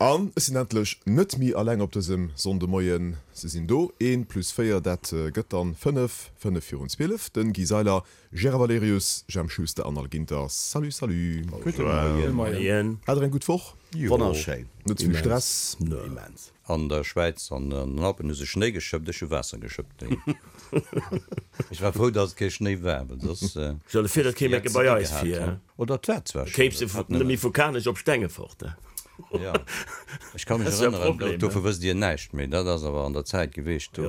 An ech sinn endlech net méi alleng op dësem Sonndemoien. Se sinn do, een plus 4, dat gëtt dann 5, 5 virun 12. Den Guy Seiler, Gérard Valerius, Jemp Schuster an Al Ginter. Salut, salut. Gudde Moien. Hat der eng gutt Woch? Wonnerschéin. Net ze vill Stress? Immens. An der Schwäiz an den Alpen hu se Schnéi geschëppt, ech hu Waasser geschëppt. Ech war frou, datt et kee Schnéi war, well soss. Stell der vir, dat kéim eng Kéier bei eis vir. Oder et war zwar Schnéi. Kéims de net méi vu Kanech op Stengefort. Jo, ech ka mech erënneren, dovu wësst Dir näischt méi, dat ass awer an der Zäit geweecht, do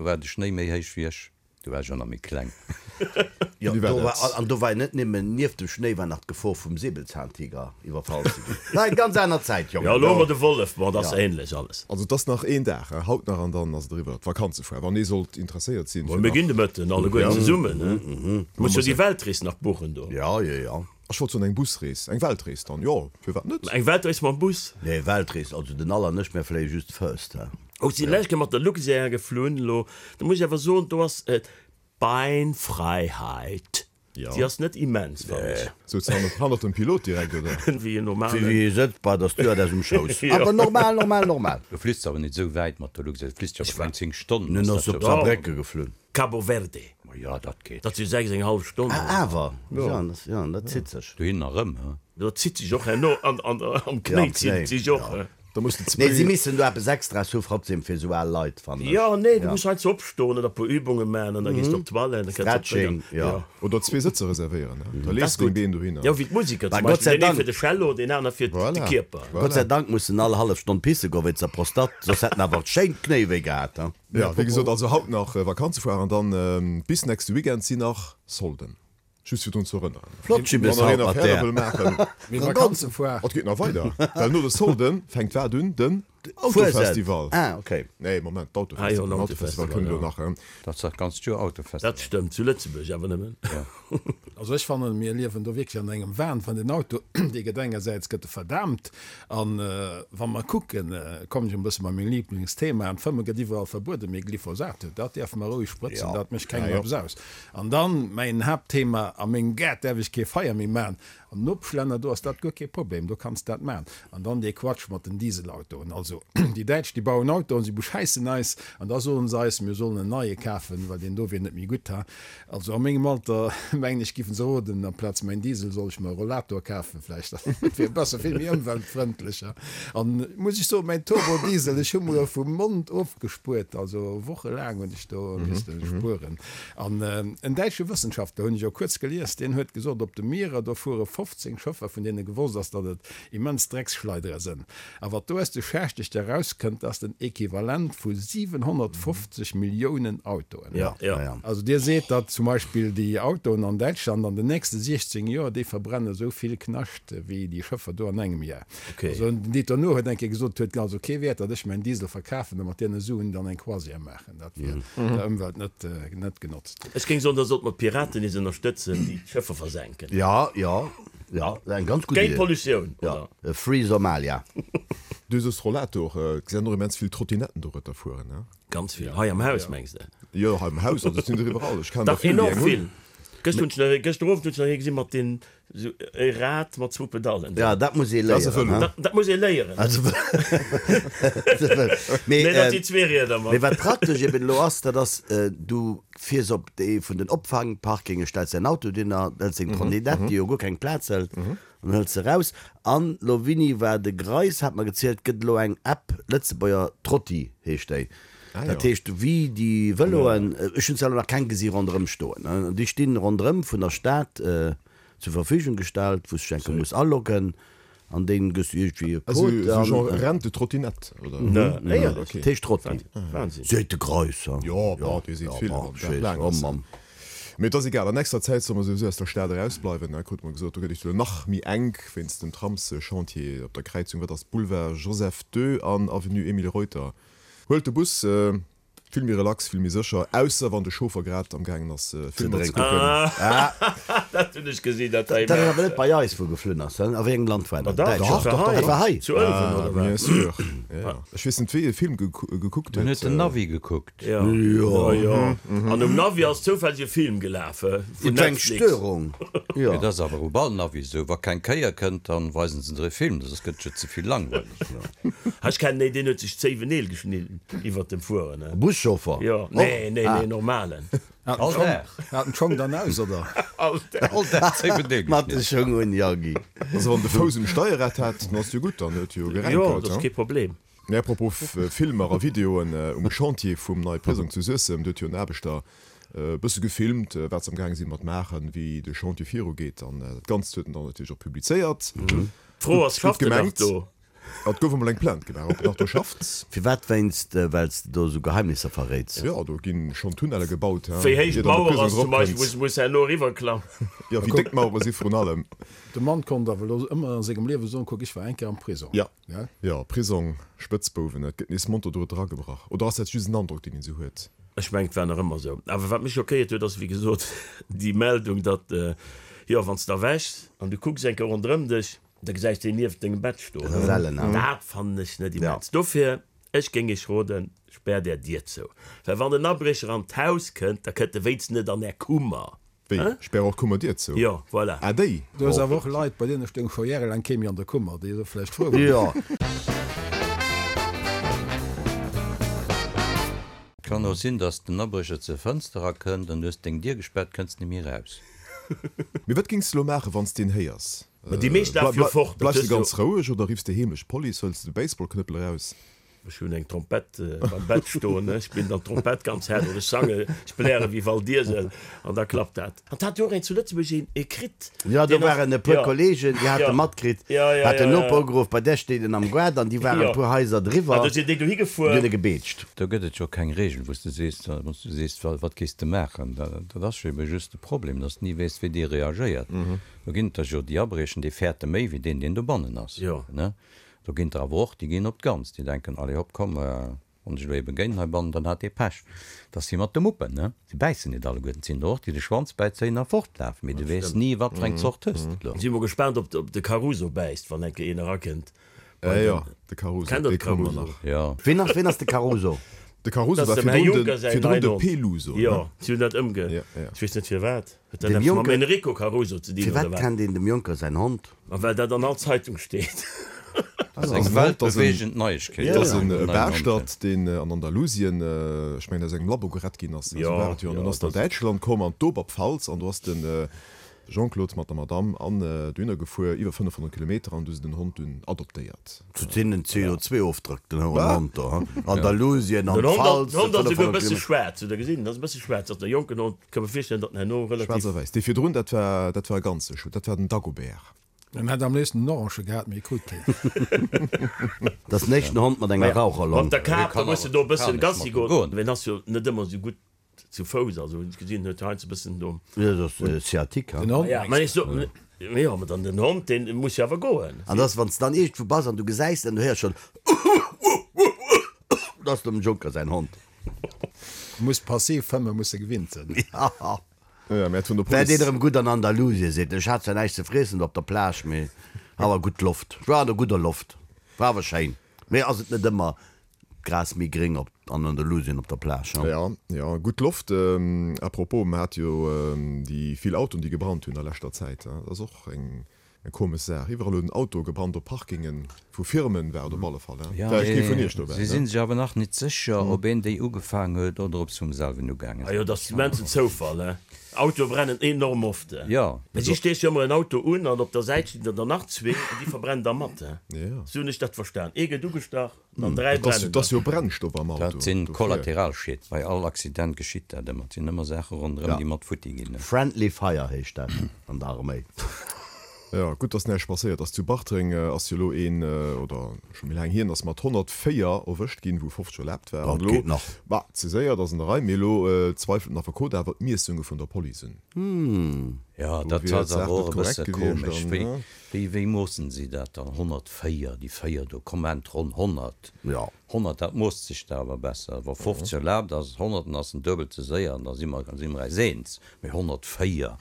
war de Schnéi méi héich wéi ech. Do war ech och nach méi kleng. Jo, do war, an do war net némmen, nieft dem Schnéi war nach d'Gefor vum Säbelzahntiger iwwerfall ze ginn. War eng ganz aner Zäit, Jongen. Jo, elo hu mer de Wollef, bon, dat ass ähnlech alles. Also et ass nach een Dag, haut nach, an dann ass et eriwwer, d'Vakanzefoire. Wann ee sollt interesséiert sinn, fir nach. Mir ginn de Mëtten alleguer zesummen, he? Muss jo déi Weltrees nach buchen do. Jo, jo, jo. Ech wollt soen eng Busrees, eng Weltrees dann, jo, firwat net? Eng Weltrees mam Bus? Nee, Weltrees, also den Al an ech, mär fléie just First, he. Oh, si lech mat der Luxair geflunn elo. Da muss ech awer soen, do ass d'Beinfreiheit, déi ass net immens, fannen ech. Souz de hannert dem Pilot direkt, oder? Wéi en normalen. Wéi ee sëtzt bei der Stewardess um Schouss. Awer normal, normal, normal. Du fliss awer net esou wäit mat der Luxair, du fliss jo awer keng 10 Stonnen. Nun ass op Saarbrécke geflunn. Cabo Verde. Ma jo, dat geet. Dat si 6 eng hallef Stonn. Ah, awer, jo, dat zitt sech. Dohin a rëm, he? Dat zitt sech och herno am Knéi, zitt sech och. Da muss de Nee, si missen do eppes Extras hu trotzdem fir esou al Leit, fannen ech. Jo, nee, du muss heiansdo opstoen oder e puer Übunge maachen an da gees de op d'Toilette, da kënns de Stretching, jo. Oder zwee Sëtzer reservéieren, he? Da lees de deng Been dohinner. Jo, wéi d'Musiker zum Beispill, deen ee fir de Cello, deen aner fir de Kierper. Gott sei Dank mussen all hallef Stonn pisse goen wéinst der Prostate, soss hätt en awer schéin d'Knéi wéi gehat, he? Jo, wéi gesot, also haut nach Vakanzefoire an dann bis nächste Weekend sinn nach Solden. Just fir drun ze erënneren. Flott Jibbes Wann haut nach een mat Affäre där. wëll maachen. Mee Vakanzefoire. Et geet nach weider, well no de Solde fänkt wat un? Den Fuesent. Autofestival. Ah, okay. Nee, Moment, Ah jo, d'Autofestival. den Den Autofestival Autofestival, kënnt elo jo. nach. Dat ass dat ganzt Joer Autofestival. Dat stëmmt, zu Lëtzebuerg awer nëmmen. Also ech fannen, mir liewen do wierklech an engem Wahn, well den Auto, dee gëtt engersäits gëtt e verdaamt, an wa mer kucken, kommen ech e bësse bei meng Lieblingsthema, an d'Fëmme gëtt iwwerall verbueden, mee Glyphosat, dat däerfe mer roueg sprëtzen, dat mécht kengem eppes aus. An dann mäin Haaptthema, a mengem Gaart däerf ech kee Feier méi maachen. Am Nopeschlänner, do ass dat guer kee Problem, do kanns dat maachen. An dann dee Quatsch mat den Dieselautoen. Also déi Däitsch, déi bauen Autoen, si beschäissen eis an da soen se eis, mir sollen en neie kafen, well deen do wier net méi gutt. Ha, also a mengem Alter, mengen ech, giffen se roden, amplaz mäin Diesel soll ech mer e Rollator kafen vläicht, dat wier besser, vill méi ëmweltfrëndlech. Ha, an muss ech soen, mäin Turbodiesel, ech hu mer e vum Mond ofgespuert, also wochelaang hunn ech do misste spueren. An en däitsche Wëssenschaftler, hunn ech och kuerz gelies, deen huet gesot, op de Mierer, do fuere 15 Schëffer, vun deene gewosst ass, datt et immens Drecksschleidere sënn. A wat do aus de Schächteg erauskënnt, ass den Equivalent vu 750 Milliounen Autoen. Also dir seet, datt zum Beispill déi Autoen an Däitschland an den nächste 16 Joer, déi verbrenne esou vill Knascht wéi déi Schëffer do an engem Jar. Also den Dieter Nuhr huet eng Kéier gesot, et huet also kee Wäert, datt ech mäin Diesel verkafen a mat deene Suen dann eng Croisière maachen. Dat wier der Ëmwelt net net genotzt. Ech géing soen, da sollte mer d'Piraten nees ënnerstëtzen, déi d'Schëffer versenken. Ja, ja, ja, eng ganz gutt Géint Idee. d'Pollutioun, Ja, oder? Free Somalia. Du soos Rollator, et sinn och immens vill Trottinetten dorëtter fueren, ne? Ganz vill. Hei am Haus, mengs de? Jo, hei am Haus, also et sinn der iwwerall. Ech kennen der Dach, vill, déi enorm eng hunn. vill. Gëscht hunn ech nach ee, gëschter Owend hunn ech nach ee gesi mat den Sou e Rad mat zwou Pedallen. Ja, dat muss ee léieren, he? Dat muss ee léieren. Mee, Nee, dat si zwee Rieder mat. Mee wat praktesch eben elo ass, dat ass, du fiers op ee vun den Opfangparkinge, stells däin Auto dohinner, hëls deng Trottinette, déi jo guer keng Plaz hëlt, an hëls se eraus. An elo, Winni war de Greis hat mer gezielt, gëtt elo eng App, Lëtzebuerger Trotti heescht déi. Dat heescht, wéi déi Vëloen, ech hunn zwar elo nach keng gesi ronderëm stoen, déi stinn ronderëm vun der Stad zur Verfügung gestallt, wou s de dech enke muss aloggen an dee gëss du iergendwéi e Code. Esou genre Rente-Trottinette, oder? Éierlech? Dat heescht Trotti. Seet de Greis, ha? Jo, bon, dee seet vill, wann den Dag laang ass. Mee et ass egal, an nächster Zäit solle mer souwisou aus der Stad erausbleiwen, krute mer gesot. Do gëtt et elo nach méi enk wéinst dem Tramschantier op der Kräizung, wat ass, Boulevard Joseph II an Avenue Emile Reuter. Huelt de Bus, vill méi relax, vill méi sécher, ausser wann de Chauffer grad am gaangen ass Filmer ze kucken. Dat hunn ech gesinn, dat war Dat ass awer immens. net bei eis wou geflunn ass, a wéi engem Land war dat? Dach, Däitschland? dat war Dat war hei, hei. zu Ëlwen, oder wat? Bien sûr. Ja, ech weess net wéi e Film gekuckt huet. En huet den Navi gekuckt. Jo, jo, jo. An um Navi ass zoufälleg e Film gelaf vun Et war eng Netflix. Störung, jo. Mee dat ass awer op all Navi esou, wa keng Kéier kënnt, dann weisen se der e Film, soss gëtt et jo ze vill langweileg. Ech kennen een, deen huet sech d'Zéiwen Neel geschnidden iwwert dem Fueren. E Buschauffer? Jo, nee, nee, nee, normalen. All Dag. Hat en d'Schong dann aus, oder? All Dag. All Dag 7 Neel Mat de geschnidden. Schong un, jo, Guy. Also wann de Fouss um Steierrad hat, dann ass jo gutt, dann huet jo Jo, geränkelt, dat ass he? kee Problem. Mee apropos Filmer a Videoen, um Chantier vum neie Prisong zu Suessem, do huet jo en Aarbechter e bësse gefilmt, wat se am gaange si mat maachen, wéi de Chantier virugeet. An dat Ganzt huet en dann natierlech och publizéiert. D'Fro ass, Gutt schafft en nach gemengt. do? Et gouf emol eng Plainte gemaach, ob en nach do schafft. Firwat? Wéinst well s de do esou Geheimnisser verréits? Jo, do gi schonn Tunnelle gebaut, he, Wéi héich ier dann de d'Mauer Prisong ass zum Beispill, eropkënnt. wou se herno eriwwerklammen. Jo, wéi déck d'Mauere si vrun allem. De Mann konnt awer elo ëmmer a sengem Liewe soen, Kuck, ech war eng Kéier am Prisong. Jo, jo, Prisong, Spëtzbouwen, et gëtt nees monter do eragebrach. Oder ass dat just en Androck, deen een esou huet? Ech mengen, et war nach ëmmer esou. Awer wat mech schockéiert huet, ass wéi gesot déi Meldung, datt, jo, wann s de erwächs an du kucks eng Kéier ronderëm dech, Da gesäis de een nieft dengem Bett stoen. Dat ass ellen, ne? Dat fannen ech net immens. Dofir, ech géing iech roden, späert är Dier zou. Well wann en Abriecher an d'Haus kënnt, da kënnt e wéinstens net an är Kummer. Wéi? Spär och d'Kummerdier zou? Jo, voilà. Ah, déi? Du hues awer och Leit, bei deene stoung scho järelaang kee méi an der Kummer, déi elo vläicht frou waren. Jo. Kann och sinn, dass den Abriecher zur Fënster erakënnt an du hues deng Dier gespaart, kënns net méi eraus. Mee wat géings de lo maachen, wann s de een héiers? Ma déi meescht lafe jo fort. Bleifs de ganz roueg oder riffs de heemlech d'Police? Hëls de de Baseballknëppel eraus? Ech hunn eng Trompett beim Bett stoen, ech spillen dann d'Trompett ganz haart oder ech sange, ech bläre wéi Val Diesel an da klappt dat. An 't hat jo och een zu Lëtzebuerg een ee kritt. Jo, do deen ass, waren e puer jo, Kollegen, déi hate jo, matkritt, jo, jo, hat den jo, Noper jo. ugeruff, bei där steet en am Gaart an déi waren Jo. e puer Haiser driwwer, An do sinn déi dohi déi hunn gefuer. e gebeetscht. Do gëtt et jo keng Reegel, wou s de sees, wou s du sees, wat géifs de maachen. Dat ass jo ebe just de Problem, datt s de ni weess, wéi dee reagéiert. Do ginn et der jo, déi abriechen, déi fäerte méi wéi deen, deen dobannen ass. Jo. Ne? Do ginn der awer och, déi ginn op d'Ganz, déi denken, Allez hopp, komm, wann ech elo ebe géint heibannen, dann hat dee Pech. Dat ass wéi mat de Muppen, ne? Si bäissen net alleguerten. Et sinn der och, déi de Schwanz bäizéien a fortlafen, mee du weess ni, wat fir eng Zort hues de elo. Si mol gespaant, ob de Caruso bäisst, wann eng Kéier een erakënnt. Äh jo, de Caruso, Kennt der dee de komme mer Caruso? nach. Jo. Ween ass, ween ass de Caruso? De Caruso Dat war ass dem Här virdrun de, Juncker säin virdrun neien de Hond. Peluso, ne? Jo, si hunn dat ëmge. Ja, ja. Ech weess net firwat. Huet dat Dem eppes mam Juncker- Enrico Caruso ze dinn, oder Firwat wat? kennt een dem Juncker säin Hond? Ma well dat an all Zeitung steet. Dat ass Ass eng en Hond, ass en- weltbeweegend Neiegkeet. Dat ass en Den neien Hond. Baaschtert, deen an Andalusien, ech mengen aus engem Labo gerett ginn ass. Esou Jo, war et jo. An jo, dunn ass en an dat ass. Däitschland komm, an d'Oberpfalz, an do ass den Jean-Claude mat der Madame an dohinner gefuer, iwwer 500 Kilometer, an du se den Hond dunn adoptéiert. Zu deenen CO2-Ofdrëck, den Hond do, hm? Andalusien, an Den Hond d'Pfalz, den Hond ass esouguer e 500 bësse Kilometer. schwaarz, hutt der gesinn? Ass e bësse schwaarz, ass der jonken Hond. Ka mer virstellen, datt en herno Schwaarz relativ. a wäiss. Dee virdrun, dat war, dat war e ganze Schu, dat war den Dagobert. En hätt am léifsten en Orange gehat, mee e krut keen. Dat ass den éischten Hond mat enger Raucherlong. Mat der Kap, da kann muss de awer do e bëssen kann ech Gassi mat em goen. goen. Well en ass jo net ëmmer esou gutt Zu Fouss, also hunn ech gesinn, huet heiansdo e bëssen do. Jo, dat ass Sciatique, Den Hond Ja, mengs mä de? ech so, jo, mä dann den Hond, deen muss jo awer goen. An dass, wann s de dann iergendwou bass an du gesäis en, du héiers schonn, Dat ass dem Juncker säin Hond. Muss passiv fëmmen, muss e gewinnt sinn. Ja. Ja, mä et vun der Wär deen Police. erëm gutt an Andalusien, seet en. Ech hat zwar näischt ze friessen do op der Plage, mee awer gutt Loft. Ech war an der gudder Loft. War awer schéin. Mee ass et net ëmmer D'Gras méi gréng op an Andalusien op der Plage, hm? Ja, ja, gutt Loft. À propos, mer hate jo déi vill Autoen, déi gebrannt hunn a leschter Zäit. Dat ass och eng komesch Saach. Iwwerall huet en Auto gebrannt, op Parkingen vu Firmen war et op alle Fall. Ja, War kee vun mee Iech dobäi, si ne? si sech awer nach nit sécher, ob een déi ugefaang huet oder ob se vum selwen ugaange Ah jo, sinn. dat ass immensen Zoufall, he. Autoe brennen enorm oft, he. Jo. Mee si steeche jo ëmmer en Auto un an op der Säit stinn der der nach zwee an déi verbrennen da mat, he. Ja. Sou hunn ech dat verstan. Ee gëtt ugestach. An 3 Dat ass, brennen dat ass dann. jo Brennstoff am Auto. Dat sinn Dofir. Kollateralschied. Bei all Accident geschitt dat ëmmer. Et sinn ëmmer Saache ronderëm, Ja. déi mat futti ginn. Friendly Fire heescht dat an der Arméi. Ja, gutt, dass näischt passéiert ass. Zu Bartreng ass jo elo een, oder scho méi laang hier, ass mat 104 erwëscht ginn, wou 50 erlaabt war. Dat An elo, geet nach. bah, ze séier, dat ass an der Rei, mee elo zweifelt den Affekot awer d'Miessunge vun der Police un. Ja, Do dat wier ass d'Saach awer net och e korrekt bësse gewiescht komesch. an, Wéi, ne? wéi, wéi moossen si dat dann? 104, déi 4 do, komm ennt ronn 100. Ja. 100, dat moosst sech da awer besser. Wa 50 erlaabt ass, 100, dann ass en duebel ze séier an da si mer, si mer eis eens. Mee 104?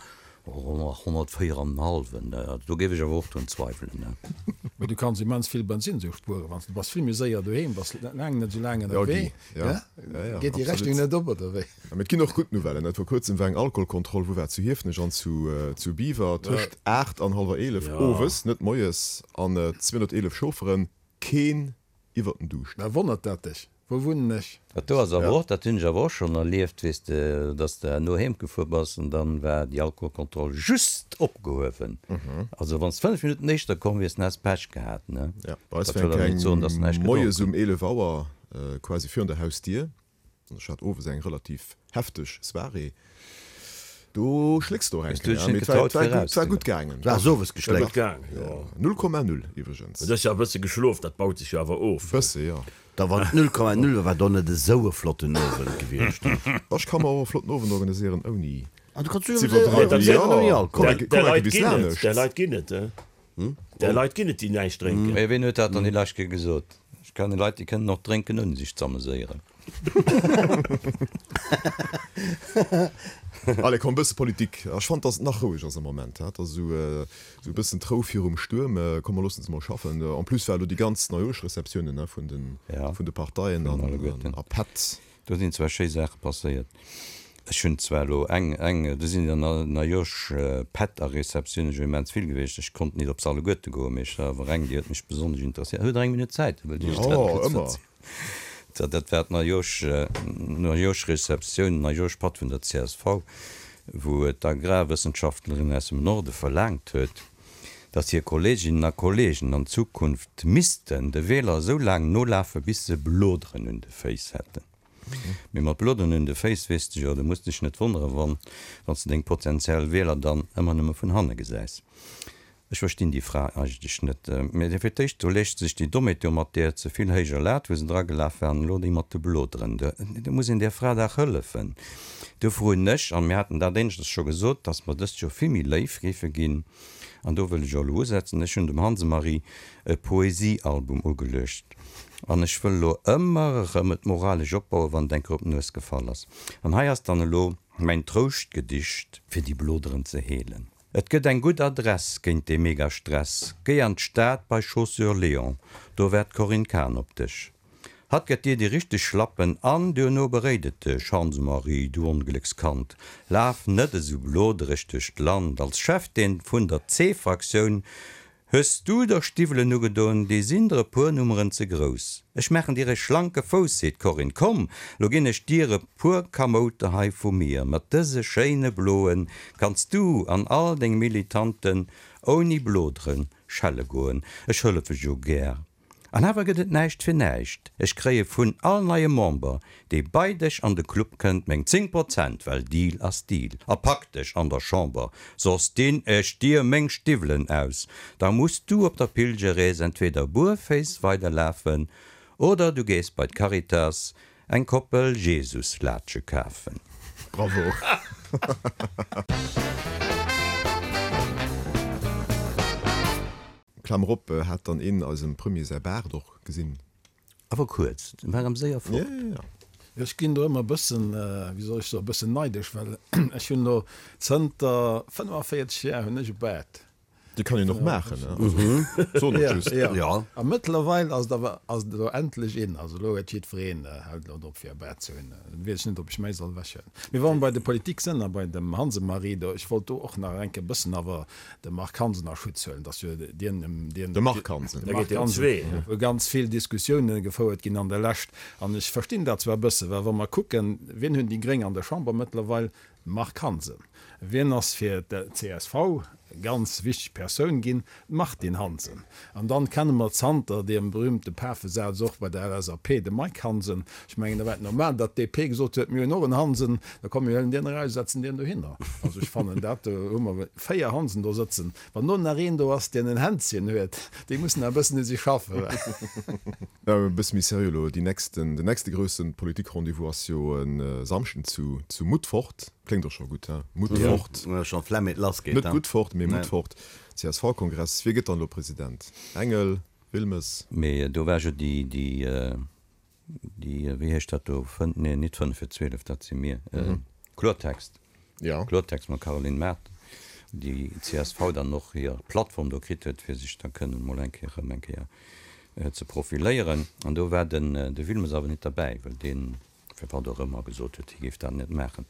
Oh, 104 an en hallwen, do géif ech awer och drun zweiwelen, ne? Mee du kanns immens vill Bensinn sou spueren, wann s du bass vill méi séier doheem, bass laang net sou laang ënnerwee. Ja, Guy, Geet déi Rechnung net op, oder wéi? Mee et ginn och gutt Nouvellen. Vor kuerzem war eng Alkoholkontroll, wou war et, zu Hiefenech an zu Biwer, tëscht 8 an hallwer 11 owes, net moies, an 211 Chaufferen, keen iwwert den Duuscht. Mä wonnert dat dech? Wou wunnen ech? Dat do ass awer och, dat hunn ech awer och schonn erlieft, weess de, dass de herno heem gefuer bass an dann war déi Alkoholkontroll just opgehuewen. Also wann s de 5 Minutten éischter komm wiers, dann häss Pech gehat, ne? Ja, bei eis war eng Kéier moies um 11 Auer quasi virun der Hausdier. An ech hat owes eng relativ hefteg Soirée. Do schlécks de och eng Kéier, mee et war gutt gaangen. Du has owes geschléckt? 0,0 iwwregens. Du hues jo e bësse geschlof, dat baut sech jo awer of. Bësse, jo. Da wann et 0,0 war, war et och net esou e flotten Owend gewiescht. Ech ka mer och e flotten Owend organiséieren ouni z'iwwerdreiwen. Ouni Alkohol. Där Leit ginn et, Där Leit ginn et, déi näischt drénken. Mee ween huet dat dann déi lescht Kéier gesot? Ech kenne Leit, déi kënnen och drénken ouni sech z'ameséieren. Allez, komm, e bësse Politik. Ech fannen, dass et nach roueg ass am Moment. Et ass esou e bëssen d'Rou virum Stuerm. Komm, mer loossen se mol schaffen. En plus war elo déi ganz Neijoerschreceptiounen vun de Parteien a Pätt. Do sinn zwar schéi Saache passéiert. Ech hunn zwar elo eng, eng, do sinn der Najosch Pätt a Receptiounen jo immens vill gewiescht. Ech konnt nit op se alleguerte goen, mee ech war awer eng, déi huet mech besonnesch interesséiert. Hutt Der eng Minutt Zäit? Da wëllt ech Iech dat kuerz verzielen. Jo, ëmmer. Dat war d'Najosch, Najoschreceptioun, Najoschpatt vun der csv, wou d'Agrarwëssenschaftlerin aus dem Norde verlaangt huet, datt hir Kolleeginnen a Kolleegen an Zukunft missten de Wieler esou laang nolafe bis se Bloderen un de Féiss hätten. Mee mat Bloderen un de Féiss, weess de jo, du muss dech net wonnere wann s de deng potentiell Wieler dann ëmmer nëmme vun hanne gesäis. Ech verstinn déi Fra eigentlech net. Mee fir d'éischt, do leescht sech déi Dommheet jo mat där ze vill héijer Lat, wou se dragelaf war, an elo déi mat de Bloderen. Do muss een där Fra dach hëllefen. Dofir hunn ech, an mir haten dat éineschters scho gesot, dass mer dëst Joer vill méi léif géife ginn, an do wëll ech och elo usetzen, ech hunn dem Hanse-Marie e Poesiealbum ugeluecht, an ech wëll elo ëmmer erëm et moralesch opbauen, wann et eng Kéier op d'Nues gefall ass. An hei ass dann elo mäin Trouschtgedicht, fir déi Bloderen ze heelen. Et gëtt eng gutt Adress géint dee Megastress, géi an d'Stad bei Chaussures Léon, do waart d'Corinne Cahen op dech. Hatt gëtt dir déi richteg Schlappen an duerno beréit et dech, Hans-Marie, du Ongléckskand, laf net esou blodereg duerch d'Land. Als Chefdeen vun der C-Fraktioun hues du der Stiwwelen ugedoen, déi sinn der e puer Nummeren ze grouss. Ech maachen dir e schlanke Fouss, seet d'Corinne, komm, lo ginn ech dir e puer Kamouter hei vu mir. Mat dëse schéine bloen kanns du an all deng Militanten ouni Blodere schelle goen. Ech hëllefe jo gär. An awer gëtt et näischt fir näischt, ech kréie vun all neiem Member, dee bei dech an de Club kënnt, meng 10 Prozent, well Deal ass Deal. A pak dech an der Chamber, soss dinn ech dir meng Stiwwelen aus, da muss du op der Pilgerrees entweder buerféiss weiderlafen oder du gees bei d'Caritas eng Koppel Jesuslaatsche kafen. Bravo! Klammer op, Hat dann een eisem Premier säi Baart och gesinn? Awer kuerz, en war erëm séier fort. Ja, ja, ja. Ech ginn do ëmmer e bëssen, wéi soll ech soen, e bëssen neidesch, well ech hunn elo zënter 45 Jar hunn ech e Baart. Dee kann een och maachen, ne? Also, soen ech just. Ja, ja. A mëttlerweil ass et awer, ass et elo endlech in. Also elo huet jiddwereen, hält elo drop fir e Baart ze hunn. Dann weess ech net, ob ech mäi soll ewechhuelen. Mee wa mer bei de Politik sënn a bei dem Hansemarie do, ech wollt do och nach eng Kéier e bëssen awer de Marc Hansen a Schutz huelen, dass jo dien, dien, De Marc Hansen. De Marc Hansen, wou ganz vill Diskussiounen gefouert ginn an der Lescht. An ech verstinn dat zwar e bësse, well wa mer kucken, wien hunn déi Gréng an der Chamber mëttlerweil? Marc Hansen. Wien ass fir d'CSV ganz wichteg Persoun ginn? D'Martine Hansen. An dann kenne mer zanter deem berühmte Pafesaz och bei der LSAP de Mike Hansen. Ech mengen, da war et normal, datt d'DP gesot huet, mir hunn och en Hansen, da komm mir huelen dien eraus, setzen dien dohinner. Also ech fannen dat, do hu mer 4 Hansen do sëtzen. Wann do nach een do ass, dien en Hänzchen huet, déi mussen nach e bëssen u sech schaffen. E bësse méi seriö elo, déi nächsten, den nächste grousse Politik-Rendez-vous ass jo e Samschden zu zu Mutfort. Kléngt och scho gutt, he? Mutfort. Jo, scho Flemm, eet lass geet, Net Guttfort, mee Mutfort. CSV-Kongress. Wie gëtt dann elo President? Engel? Wilmes? Mee do war jo déi, déi, déi, wéi heescht dat do, fënn, nee, nit fënnef fir 12, dat si mir, Kloertext. Jo. Kloertext mam Caroline Mart. Déi csv dann och hir Plattform do kritt huet, fir sech da kënnen emol eng Kéier erëm eng Kéier ze profiléieren. An do war den de Wilmes awer net derbäi, well deen, firwat och ëmmer, gesot huet, hie géif dat net maachen.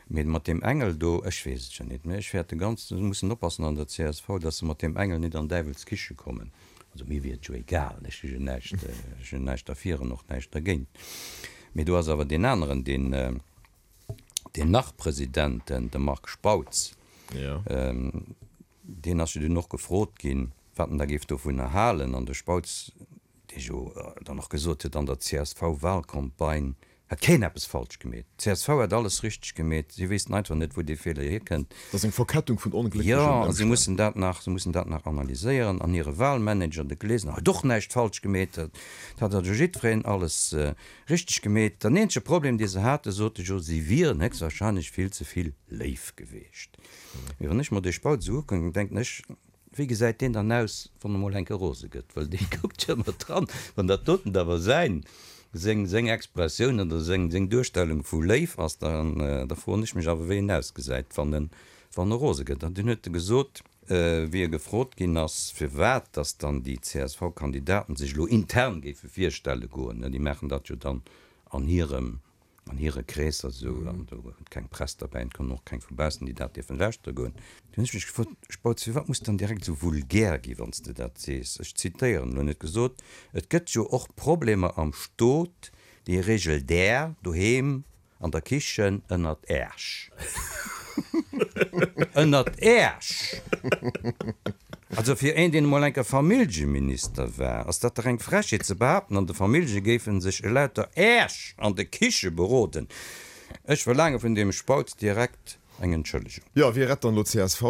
Mee mat deem Engel do, ech weess et jo net, mä ech fäerte ganz, se mussen oppassen an der csv, datt se mat deem Engel net an Däiwels Kiche kommen. Also mir wier et jo egal, ech hu jo näischt, ech hunn näischt derfir an och näischt dergéint. Mee do ass awer deen aneren, deen, deen Nach-President, de Marc Spautz, deen ass jo dunn och gefrot ginn, wat en da géif dovunner halen. An de Spautz, dee jo dann och gesot huet, an der CSV-Wahlcampagne hätt keen eppes falsch gemeet, d'CSV hätt alles richteg gemeet, si wéissten einfach net, wou dee Feeler hierkënnt. Dat ass eng Verkettung vun onglécklechen Ëmstänn. Jo, a si mussen dat nach, si mussen dat nach analyséieren. An hire Wahlmanager, de Glesener, huet och näischt falsch gemeet, dat hat also jiddwereen alles Richteg gemeet. Den eenzege Problem dee se hate, sot de Jo, si wieren héchstwahrscheinlech vill ze vill léif geweecht. Mee wann ech mer dee Spautz esou ukucken, denken ech, wéi gesäit deen dann aus, wann e mol enke rose gëtt? Well dee kuckt jo ëmmer dran. Wann dat doten awer säin, seng, seng Expressioun oder seng, seng Duerstellung vu léif ass, dann, da froen ech mech awer, wéi en ausgesäit, wann en, wann e rose gëtt. An dunn huet e gesot, Wéi e gefrot ginn ass, firwat datt dann déi CSV-Kandidaten sech elo intern géife virstelle goen, déi maachen dat jo dann an hirem, an hire Kreesser esou, an do huet keng Press derbäi an et kommen och keng vu baussen, déi dat dierfen lauschtere goen, du hunn ech mech gefrot, Spautz, firwat muss dann direkt esou vulgär gi wann s de dat sees? Ech zitéieren elo net gesot, Et gëtt jo och Problemer am Stot, déi regelt Där doheem An der Kichen ënnert Äerch. Ënnert Äerch! Also fir een, deen emol enker Familljeminister war, ass dat dach eng Frechheet ze behaapten, an de Famillje géife sech elauter Äerch an de Kiche beroden. Ech verlaange vun deem Spautz direkt Eng Entschëllegung. Jo, wie rett dann elo csv?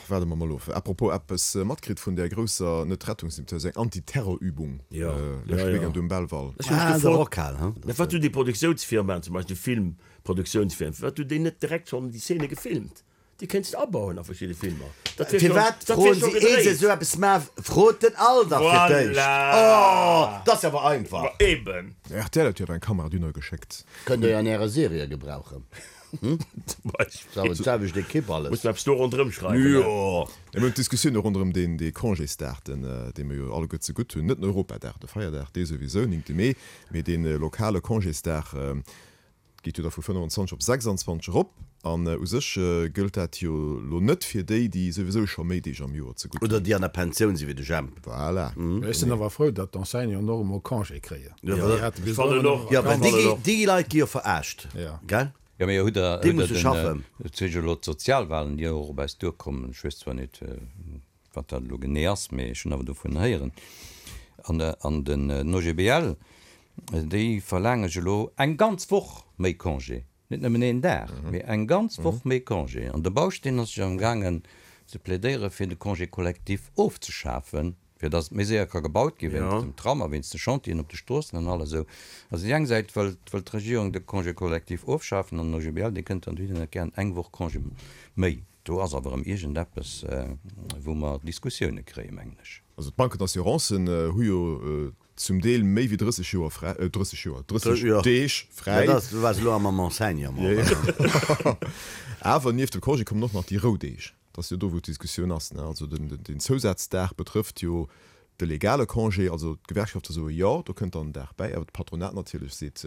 Waarde mer mol of. À propos, eppes matkritt vun där grousser, net Rettungsimtioun, eng Antiterrorübung leschte Weekend um Belval? Ech hu mech gefrot, mä wat hunn déi Produktiounsfirmaen, zum Beispill déi Filmproduktiounsfirmen, firwat hunn déi net direkt schonn déi Szene gefilmt? Déi kéints de abauen a verschidde Filmer. Dat wier schonn, Firwat dat wier froen scho si, ehe se gedréit. esou eppes maachen, frot den Al dach fir d'éischt. Voilà! Oh, dat ass jo awer einfach. Ma eben. Rtl huet jo awer eng Kamera dunner geschéckt. Kënnt der jo an ärer Serie gebrauchen. Zum Beispill. D'selwecht Ekipp alles. Muss mer eppes do ronderëm schreiwen, ne? Jo. Mir hunn d'Diskussioun och ronderëm deen, dee Congésdag, den, dee mer jo alleguer zegutt hunn, net den Europadag, de Feierdag, dee souwisou, 9. Mee, mee dee lokale Congésdag geet jo da vu 25 op 26 erop. An u sech gëllt dat jo elo net fir déi, déi souwisou scho méi Deeg am Joer zegutt hunn. Oder déi an der Pensioun sinn, wéi de Jemp. Voilà. Ech sinn awer frou, datt d'Enseignanten och emol Congé kréien. Jo, well déi Leit gi jo veraascht, gell? Jo, mee hutt Der, Déi hutt Der musse den, schaffen. et si jo elo d'Sozialwahlen, déi och op eis duerkommen, ech weess zwar net, wat dat elo genee ass, mee ech hunn awer dovun héieren, an, an den OGBL, déi verlaange jo elo eng ganz Woch méi Congé, net nëmmen een Dag, mee eng ganz Woch méi Congé. An de Bausch, deen ass jo amgaangen ze plädéiere fir de Congé collectif ofzeschafen, fir datt et méi séier ka gebaut gi wéinst dem Tram a wéinst de Chantieren op de Stroossen an alles esou. Also déi eng Säit wëllt wëllt d'Regierung de Congé collectif ofschafen an den OGBL dee kënnt dann dohinner gären eng Woch Congé méi. Do ass awer erëm iergendeppes wou mer Diskussioune kréien, mengen ech. Also d'Banken d'Assurancen hu jo zum Deel méi wéi 30 Joer fräi, 30 Joer, 30 Deeg fräi. Dat ass, du waars elo am am Enseignement. Awer nieft dem Congé kommen och nach déi Roudeeg. Dat ass jo do, wou d'Diskussioun ass. Also den Zousazdag betrëfft jo de legale Congé. Also d'Gewerkschafte soe jo, do kënnt dann en Dag bäi. Awer d'Patronat natierlech seet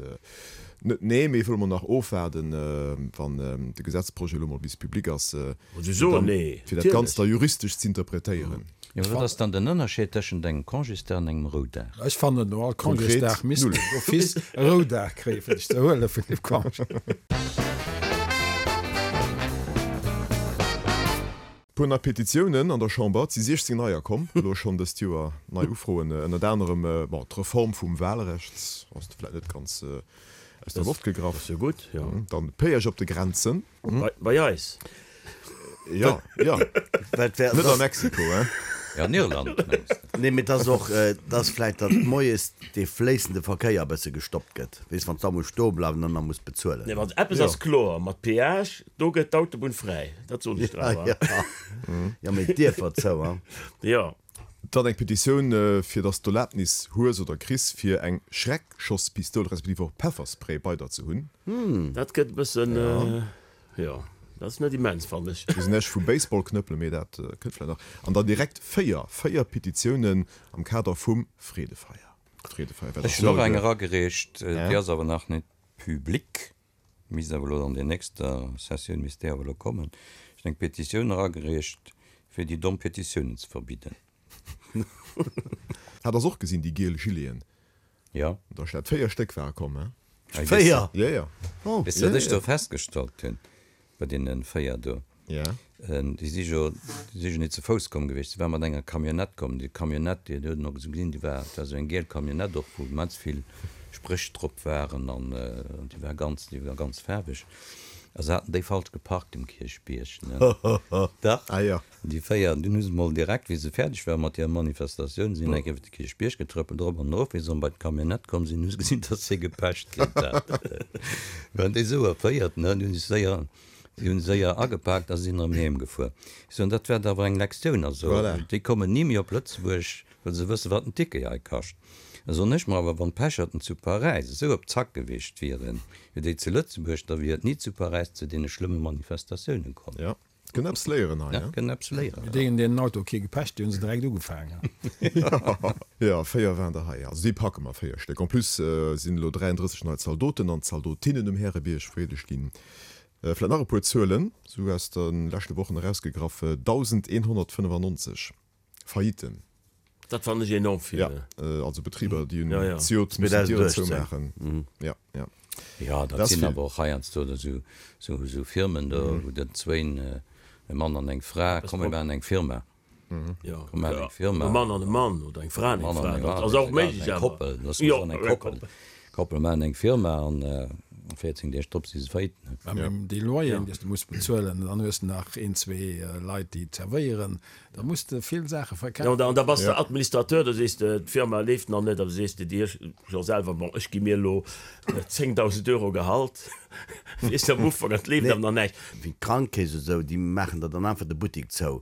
net nee, mee wëlle mol nach ofwaarden, wann de Gesetzprojet elo mol bis public ass, fir dat Ganzt da juristesch z'interpretéieren. Jo, wat ass dann den Ënnerscheed tëschent engem Congésdag an engem Roudag? Ech fannen, no all Congésdag misst een d'office e Roudag kréien, fir sech ze erhuele vun dem Congé. Puer nei Petitiounen an der Chamber, et si 16 neier komm, elo schonn dëst Joer, nei Ufroen, ënnert anerem, bon, d'Reform vum Wahlrecht ass vläit net ganz aus der Loft gegraff. Ass jo gutt, jo. Dann Péage op de Grenzen. Bei eis? Jo, jo. Net a Mexiko, hein? Jo, an Irland, mengs de? Nee, mee et ass och, et ass vläit, datt moies dee fléissende Verkéier e bësse gestoppt gëtt. Weess, wann s da muss stoe bleiwen an da muss bezuelen. Nee, wann eppes ass kloer, mat Péage, do gëtt d'Autobunn fräi, dat soen ech der awer. Jo, mee d'Dierfer zou, hein? Jo. Dann eng Petitioun, fir datt s d'Erlaabnis hues oder kriss, fir eng Schreckschosspistoul respektiv och Pefferspray bei der ze hunn. Dat gëtt e bëssen, jo. Dat ass net immens, fannen ech. Ech weess näischt vu Baseballknëppelen, mee dat kënnt vläicht nach. An dann direkt 4, 4 Petitiounen am Kader vum Freedefeier. Freedefeier, wat Ech ass hunn och elo eng de. eragereecht, déi ass awer nach net public, misst awer elo an der nächster Sessioun misst déi awer elo kommen. Ech hunn eng Petitioun eragereecht, fir déi domm Petitiounen ze verbidden. Hat ass och gesinn, déi giel Gileten. Jo. Da Stad 4 Stéck ware komm, he? 4? Jo, jo. Oh. Weess de, wat ech do festgestallt hunn bei deene 4 do? Ja. Déi si jo, déi si jo net ze Fouss komm gewiescht, si ware mat enger Camionnette komm. Déi Camionnette, déi huet een och esou gesinn, déi war, dat war esou eng giel Camionnette och, wou immens vill Spréch drop waren an déi war ganz, déi war ganz faarweg. A se haten déi falsch geparkt um Kierchbierg, ne? Dach. Ah jo. Déi 4, dunn hu se mol direkt, wéi se fäerdeg ware mat hirer Manifestatioun, sinn eng Kéier iwwer de Kierchbierg getrëppelt, erop an erof. Wéi se erëm bei d'Camionnette komm sinn, hu se gesinn, datt se gepecht kritt hat. Waren déi esou erféiert, ne? Déi hunn sech séier, déi hunn séier agepaakt a sinn erëm heem gefuer. Ech soen, dat wäert awer eng Lektioun. Also, Voilà. déi kommen ni méi op Lëtzebuerg, well se wëssen, wat en Ticket hei kascht. Da soen ech mer awer, wann d'Pecherten zu Paräis esou op Zack gewiescht wieren, wéi déi zu Lëtzebuerg, da wier et ni zu Paräis zu deene schlëmme Manifestatiounen komm. Ja. Kënnt eppes léieren hei, ne? Kënnt eppes léieren. Mee deenen, deenen Auto kee gepecht, déi hu se direkt ugefaangen. Jo, 4 waren der hei. Also déi packe mer, 4 Stéck. En plus sinn elo 33 nei Zaldoten an Zaldotinnen um Härebierg vereedegt ginn. Vläit nach e puer Zuelen, esou aus de leschte Wochen erausgegraff, 1.195 Faillitten. Dat fannen ech enorm vill. Ja, also Betriber, déi hunn zejoert mussen d'Dieren zoumaachen. Ja, ja. Jo, dat sinn awer och heiansdo esou Firmen do, wou dann zwéin, e Mann an eng Fra, komm mir maachen eng Firma. Jo, Komm mir maachen eng Firma. E Mann an e Mann oder eng Fra an eng Fra, dat ass och méiglech Eng awer. Koppel, loosse mer soen eng Koppel. Koppel maachen eng Firma an 14 Deeg drop si se faillite. Mä déi Loyeren, déi s de muss bezuelen, dann hues de nach een, zwee Leit, déi zerwéieren, Da muss de vill Saache verkafen. Jo, an da bass de Administrateur, da sees de, d'Firma leeft nach net, da sees de dir jo selwer, bon, ech gi mir elo 10.000 Euro Gehalt, weess de, am Ufank, an et leeft awer nach näischt. Wéi d'Krankekeess oder esou, déi maachen der dann einfach de Buttik zou,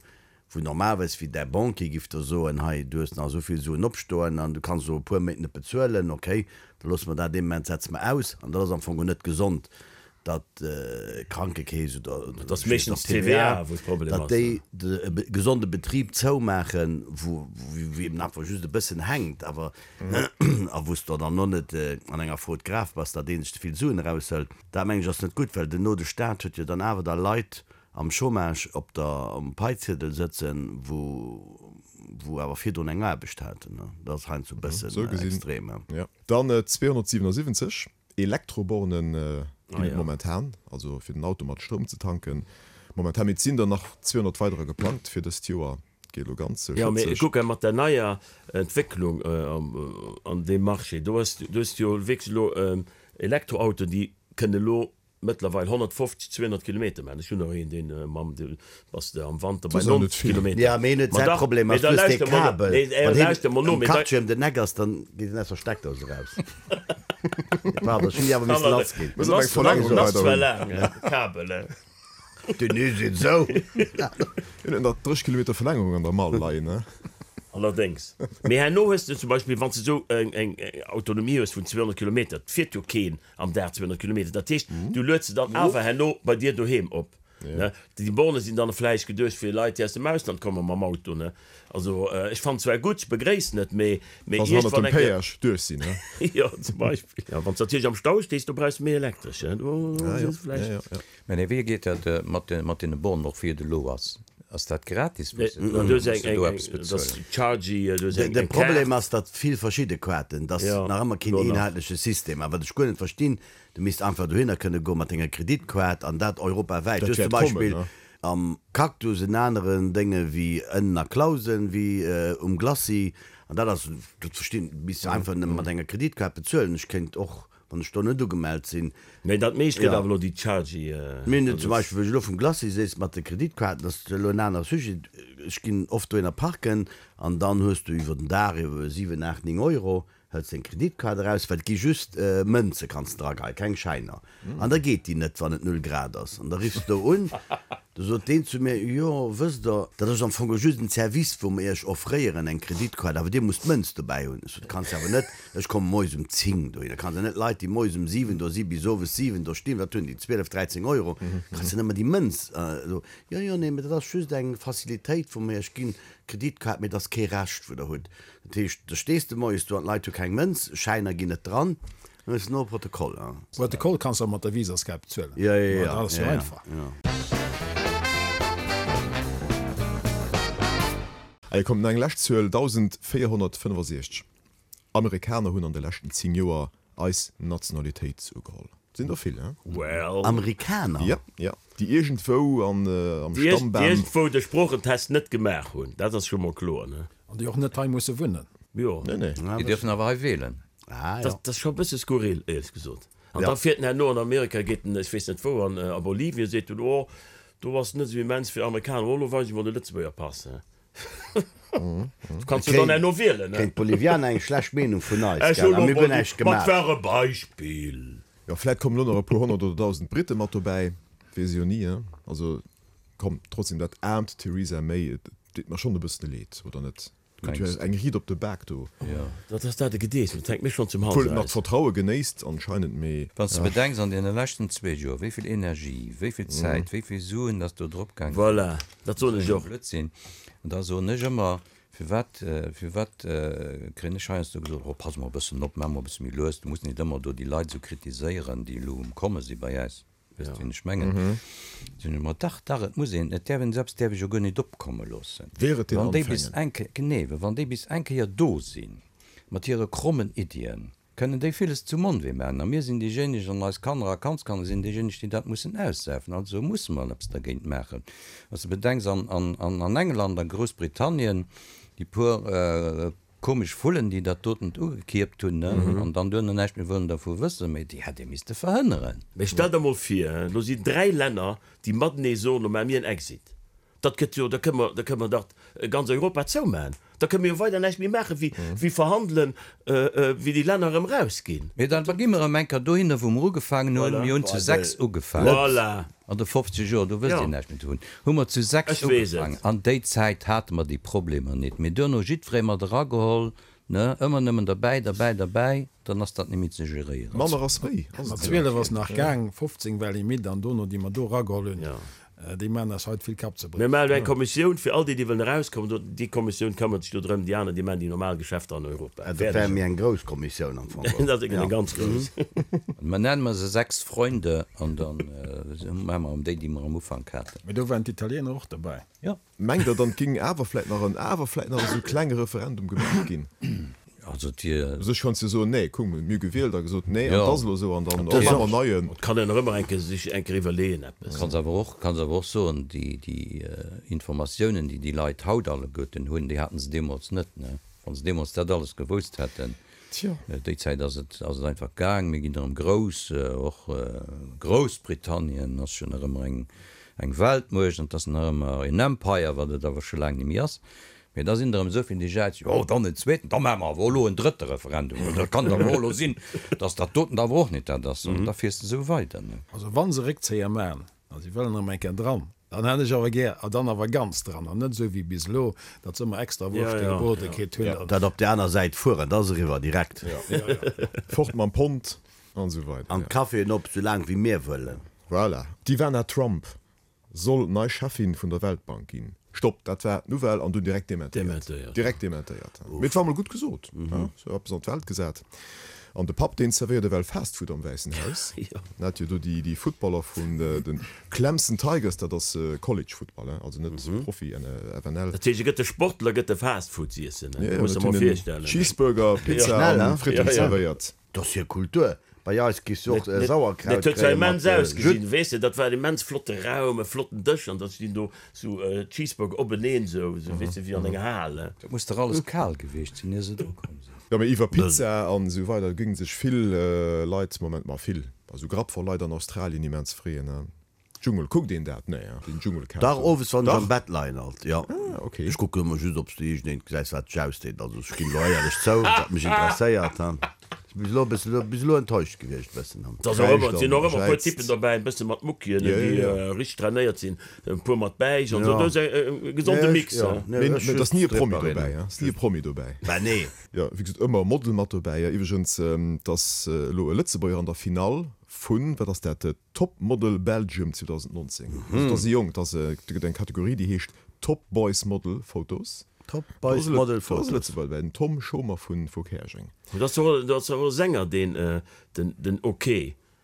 wou normalerweis, wéi däi Banquier giff der soen, hei, du hues nach esou vill Suen opstoen an du kanns elo e puer Méint net bezuelen, okay, da loosse mer dat ee Moment, setze mer aus. An dat ass am Fong och net gesond. datt d'Krankekeess oder Dat ass meeschtens d'TVA, wou de Problem ass. Datt déi e gesonde Betrib zoumaachen, wou eben einfach just e bëssen hänkt, awer a wou s de dann och net an enger Faute grave bass, datt ee sech ze vill Suen eraushëlt. Dat mengen ech ass net gutt, well duerno de Staat huet jo dann awer da Leit am Chômage op der um Paiziedel sëtzen, wou wou awer virdrun eng Aarbecht haten. Dat ass heiansdo e bëssen extrem. Dann 277. Elektroborne ginn et momentan, also fir den Auto mat Stroum ze tanken momentan, mee et sinn der nach 200 weiderer geplangt fir dëst Joer. Et geet elo ganz Jo, mee schëtzeg. kucke mat der neier Entwécklung an deem Marché, do hues du hues jo wierklech elo Elektroautoen, déi kënne elo mëttlerweil 150, 200 Kilometer maachen. Ech hunn och een, deen mam, do bass de am Wanter bei 90 Kilometer. Jo, mee hien huet Ma säi dach, Problem mee ass, da du hues dee lauschter mol no, Kabel, nee, wann hien lauschter mol no, am mee da. Quartier ëm den Eck ass, dann geet en aus der Steckdous eraus. Pardon, ech hunn déi awer missen lass ginn. Muss awer eng Verlängerung Ass weider zwar hunn. laang, de Kabel, he. Den is et esou. Hien huet nach 30 Kilometer Verlängerung an der Mall leien, ne? Allerdéngs. Mee herno hues de zum Beispill, wann s de esou eng Autonomie hues vun 200 Kilometer, et fiert jo keen am Dag 200 Kilometer, dat heescht, du lueds se dann awer herno bei dir doheem op. Ne? Déi Borne sinn dann vläicht geduecht fir Leit, déi aus dem Ausland komme mam Auto. Ne? Also ech fannen zwar gutt, ech begréissen et, mee mee Wa se hannert iergendwann dem eng Kéier. Péage duerch sinn, ne? Jo, zum Beispill. Ja, wann s de natierlech am Stau stees, do brauchs de méi Elektresch, ne? Do Ah, jo. ass vläicht. Ja, ja, ja. Mä nee, wéi geet dat mat de, mat deene Bornen och, wéi et elo ass? Ass dat gratis, wou Nee, se do, du hues muss eng, de do eng, eppes eng, dat ass bezuelen? Chargy, du hues De eng, de eng Problem Kaart. ass, datt vill verschidde Kaarten, datt Ja, nach ëmmer keen elo nach. eenheitleche System. A wat ech guer net verstinn, Du misst einfach dohinner kënne goen mat denger Kreditkaart an dat europawäit. Dat Du hues zum wäert kommen, Beispill ne? am Cactus en aneren Dénge wéi ënnen a Clausen, wéi um Glacis. An dat ass, dat verstinn, misst de einfach nëmme mat enger Kreditkaart bezuelen. Ech kéint och, wann ech do net ugemellt sinn. Mee dat meescht gëtt Jo. awer elo déi Chargy. Mir hunn et zum Beispill, wou ech elo vum Glacis sees, mat de Kreditkaarten, dat ass elo en anere Sujet, ech ginn oft dohinner parken an dann hues du iwwer den Dag iwwer 7, 8, 9 Euro. Hëls deng Kreditkaart eraus, well et gi just Mënze kanns de drageheien, keng Schäiner. An da geet déi net, wann et null Grad ass. An da riffs de do un. Du sot deen zu mir, Jo, wësst Der, dat ass am Fong just en Service, wou mer Iech offréieren, eng Kreditkaart, awer Dir musst d'Mënz dobäi hunn. Ech sot, Kanns de awer net, ech komme moies um 10 dohinner, kanns de net Leit, déi moies um 7 do si bis owes 7 do stinn, wat hunn déi, 12, 13 Euro, kanns de net mer déi Mënz do. Jo, jo, nee, mee dat ass just eng Facilitéit, wou mer Iech ginn, d'Kreditkaart, mee dat ass kee Recht, wou Der hutt. Dat heescht, da stees de moies do an d'Leit hu keng Mënz, Schäiner ginn net dran. Dat ass no Protokoll, hein. Protokoll kanns de och mat der Visaskaart bezuelen. Ja, ja, ja. Dat ass jo einfach. Allez, kommt nach eng lescht Zuel, 1.465 Amerikaner hunn an de leschten 10 Joer eis Nationalitéit ugeholl. Sinn der vill, hein? Well. Amerikaner? Ja, ja. Déi iergendwou an am Déi Stammbam. iergendwou de Sproochentest net gemaach hunn, dat ass scho mol kloer, ne? An déi och net hei musse wunnen. Jo. Nee, nee. Déi dierfen awer hei wählen. Ah, jo. Dat ass scho e bësse skurril, éierlech gesot. An da fiert en herno an Amerika, geet en, ech weess net wou, an a Bolivien, seet en, oh, do ass et net esou immens fir Amerikaner, oh, elo weis ech mol de Lëtzebuerger Pass, he. Du kanns jo dann herno wielen, he. Kréien d'Bolivianer eng schlecht Meenung vun eis, Ech gell? hu A lo mir hunn mol, näischt ma et gemaach. war e Beispill. Jo, vläit kommen elo nach e puer 100 oder 1.000 Britte mat dobäi, weess ee jo ni, he. Also, komm, trotzdem, dat aarmt Theresa May, et deet mer schonn e bëssen leed, oder net? Gëtt jo eng Riit op de Bak do. Jo, dat ass dat e Gedees, dat hänkt mir schonn zum Hals Obwuel et nach eraus. d'Vertraue genéisst anscheinend, mee. Wann s de bedenks, an deene leschten zwee Joer, wéi vill Energie, wéi vill Zäit, wéi vill Suen dass do drop gaang sinn, Voilà, dat soen ech och. Blödsinn. An da soen ech ëmmer, firwat, firwat kréien ech heiansdo gesot, oh pass mol e bëssen op, maach mol e bësse méi lues, du muss nit ëmmer do déi Leit esou kritiséieren, déi elo um Komme si bei äis. Wësst wien ech mengen? Sinn ech mer, dach, dach, et muss een, et däerf een, selbst däerf ech jo guer nit opkomme loossen. Wehret den Wann déi bis Anfängen. eng Kéier, genee, well wann déi bis eng Kéier do sinn, mat hire krommen Iddien, kënnen déi villes zum Onwee maachen. A mir sinn déijéineg, an eis Kanner a Kandskanner sinn déijéineg, déi dat mussen aussäffen. Also musse mer eppes dergéint maachen. Wann s de bedenks, an, an, an England, a Groussbritannien, déi puer, Komesch Vullen, déi dat dotent ugekierpt hunn, ne, an dann duerno näischt méi wëllen dervu wëssen, mee déi hätt ee misste verhënneren. Mee stell der mol vir, elo sinn 3 Länner, déi matenee soen, lo maache mir en Exit. Dat gëtt jo, da kënne mer, da kënne mer dach ganz Europa zoumaachen. Da kënne mir jo weider näischt méi maache wéi, wéi verhandelen, wéi déi Länner erëm erausginn. Mee dann gi mer erëm eng Kéier dohinner, wou mer ugefaangen hunn. Mir hunn zu 6 ugefaangen. Voilà. An de 50 Joer, do wësst Dir näischt méi dovun, hu mer zu 6 Ech weess et. ugefaangen. An déi Zäit hate mer déi Problemer nit. Mee duerno jiddweree mat erageholl, ne, ëmmer nëmmen derbäi, derbäi, derbäi, dann ass dat net méi ze geréieren. Manner ass méi, ass Mat et jo. 12 ass nach gaang, 15 war Limite an dono, déi mer do erageholl hunn, Déi maachen eis haut vill Kappzerbréch. Mir maachen elo eng Kommissioun fir all déi, déi wëllen erauskommen. Do, déi Kommissioun këmmert sech do drëm. Déi aner, déi maachen déi normal Geschäfter an Europa. Dat wär méi eng grouss Kommissioun am Fong. Dat ass eng ganz grouss. Mä nenne mer se Sechs Freunde an da maache mer erëm déi, déi mer am Ufank haten. Mee do waren d'Italiener och derbäi. Jo. Mengt Der dann, et géing awer vläit nach en, awer vläit nach esou klenge Referendum gemaach ginn? Also et wier. U sech kanns de jo soen, nee, kuck, mir hu gewielt a gesot, nee, an et ass elo esou, an dann, oh, maache mer en neien. Et kann een nach ëmmer eng Kéier sech eng Kéier iwwerleeën eppes. Kanns awer och, kanns awer och soen, déi, déi Informatiounen, déi déi Leit haut alleguerten hunn, déi haten se deemools net, ne? Wa se deemools dat alles gewousst hätten. Tjo. Déi Zäit ass et, ass et einfach gaang. Mir ginn erëm grouss, och Groussbritannien ass jo nach ëmmer eng, eng Weltmuecht an et ass nach ëmmer een Empire, wat et awer scho laang net méi ass. Mee da sinn der erëm esou vill, déi jäizen, jo, dann en zweeten, da maache mer awer och elo en drëtte Referendum, well dat kann et awer och elo sinn, datt dat doten awer och net dat ass. An da fiers de esou weider, ne? Also wa se Réckzéier maachen, a si wëllen erëm eng Kéier dran, dann hätt ech awer gär, a dann awer ganz dran, an net esou wéi bis elo, datt se ëmmer extra Wurschte gebrode kritt hunn. Dat op där aner Säit fueren, da ass eriwwer direkt. Fort mam Pond an esou weider. An d'Caféen op, sou laang wéi mir wëllen. Voilà. D'Ivana Trump soll nei Cheffin vun der Weltbank ginn. Stopp, dat war d'Nouvelle an dunn direkt dementéiert. Direkt dementéiert. Mee et war mol gutt gesot, sou eppes an d'Welt gesat. An de Papp, deen zerwéiert ewell Fast Food am Wäissen Haus. En hat jo do déi Footballer vun de Clemson Tigers, dat ass College Football, also net Profi, FNL. Dat heescht, e gëtt de Sportler gëtt de Fast Food z'iessen, dat muss de mer virstellen. Cheeseburger, Pizza an Fritten zerwéiert. Dat ass hir Kultur. Bei eis giss du och Sauerkraut Dat huet zwar kréie mat immens ausgesinn, Jus. weess de, dat war en immens flotte Raum, e flotten Dësch an da stinn do sou Cheeseburger openeen, sou, sou weess de, wéi an enger Hal. Dat muss dach alles kal gewiescht sinn, ier se dru komm sinn. Jo, mee iwwer Pizza an esou weider géinge sech vill Leit, Moment, ma vill, also Grapp voll Leit an Australien immens freeën. Dschungel, kuckt een dat? Nee, hein, den Dschungelcamp. Dach, owes wann ech Dach? am Bett leien alt, jo. Ah, ok. Ech kucken ëmmer just, ob s de iergendeent gesäis, wat sech ausdeet. Also ech ginn elo éierlech zou, wat mech interesséiert, hein. bis elo e bëssen, bis elo enttäuscht gewiescht e bëssen. Et ass och ëmmer, et sinn och ëmmer e puer Typen dobäi, e bësse mat Muckien, déi richteg trainéiert sinn, e puer mat Bäich an esou. Do ass e gesonde Mix. Mee et ass ni e Promi dobäi, ass ni e Promi dobäi. Bah nee. Jo, wéi gesot, ëmmer e Model mat dobäi. Iwwregens, et ass elo e Lëtzebuerger an der Finall vun, wat ass dat, Top Model Belgium 2019. Also et ass e Jong, et ass e, do gëtt eng Kategorie, déi heescht Top Boys Model Photos. Top Boys Model Photos. Do ass e Lëtzebuerger dobäi, den Tom Schomer vu vu Käerjeng. Do ass och, do ass och e Sänger, deen, den, den Ok.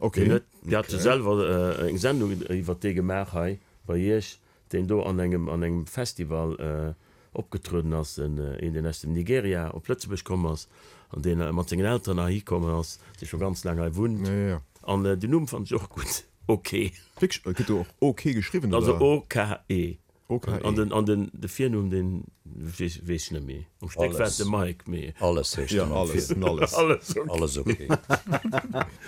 Ok. Deen huet, Dir hat jo selwer eng Sendung iwwert dee gemaach hei bei Iech, deen do an engem, an engem Festival opgetrueden ass, en, een deen aus dem Nigeria op Lëtzebuerg komm ass an deen mat sengen Elteren heihi komm ass, dee scho ganz laang hei wunnt. Ja, ja. An den Numm fannen ech och gutt, Ok. Wierklech? Gëtt do och Ok geschriwwen, oder? Also O-K-E. O-K-E. An den, an den, de Virnumm, deen weess, weess ech net méi. Am Stéck war et de Mike, mee. Alles heescht Ja, en am alles, Virnumm. den alles. Alles ok. Alles ok.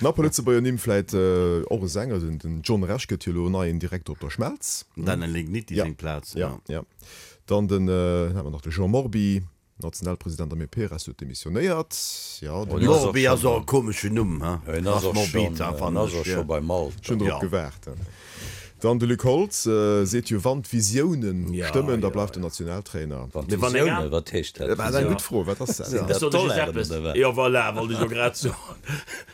Nach e puer Lëtzebuerger Nimm, vläit och e Sänger, den, den John Rech gëtt jo elo neien Direkter op der Schmelz. Den Daniel Ligniti Ja, seng Plaz, ja, ja. ja. Dann den, dann hat mer nach de Jean Morby, Nationalpresident am EP-Rest huet demissionéiert. Jo, den Hien ass och Morbi ass och schonn, e komeschen Numm, he? hien ass Ass och morbid, schonn, ha, hien fannen ass ech, och jo. scho beim Alter. Ech hunn drop Jo. gewaart. Dann de Luc Holtz seet jo, wann d'Visiounen Ja, stëmmen, da ja, bleift ja. en Nationaltrainer. Wann Mee wann eng d'Visiounen, an. wat heescht dat, Dat ass eng Visioun? gutt Fro, wat ass dat? Sinn Ech dat soen lech just Dollaren eppes, oder wat? jo voilà, wollt ech elo grad soen,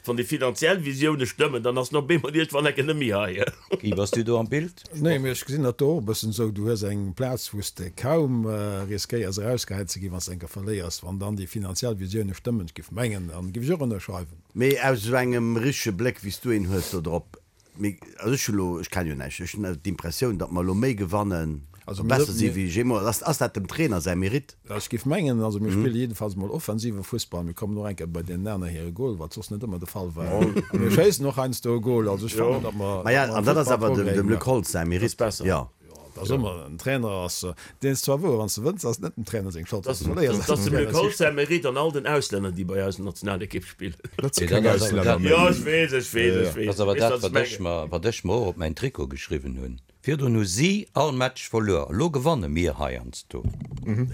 wann déi finanziell Visioune stëmmen, dann ass en op eemol iergendwann enke net méi hei. Guy, bass du do am Bild? Nee, mee ech gesinn dat do och e bëssen esou. Du hues eng Plaz, wou s de kaum riskéiers erausgehäit ze ginn, wann s de eng Kéier verléiers. Wann dann déi finanziell Visioune stëmmen, ech géif mengen, dann géif ech och ënnerschreiwen. Mee aus esou engem richtege Bléck, wéi s du een hues do drop, mee also ech hu lo, ech kenne jo näischt, ech hunn d'Impressioun, datt mer elo méi gewannen, Also mir besser si mir wéi jeemools. Ass, ass dat dem Trainer säi Mérite? Ech géif mengen, also mir spille jiddefalls emol offensive Fussball, mir kommen och eng Kéier bei deenen aner hire Gol, wat soss net ëmmer de Fall war. A mir schéissen och heiansdo e Gol. Also ech fannen, datt mer, Maja, datt mer an am dat ass Fussball awer dem, Progrès dem Luc gemaach hunn. Holtz säi Mérite, Besser. jo. Jo, et ass ëmmer, en Trainer ass, deen ass zwar wouer, wann s de wënns, ass et net dem Trainer seng Schold, wann s de verléiers, Dat ass et ass dem dem Luc Trainer seng Holtz säi Mérite an all den Auslänner, déi bei eis Nationalekipp spillen. Dat si Mee keng dat ass awer Auslänner dat, méi. Jo, ech weess, ech weess, ech dat weess. ass awer Weess, dat, wat ech wat ech mengen. mer, wat ech mer och op mäin Trikot geschriwwen hunn. Virdrun hu si all Match verluer, elo gewanne mir heiansdo.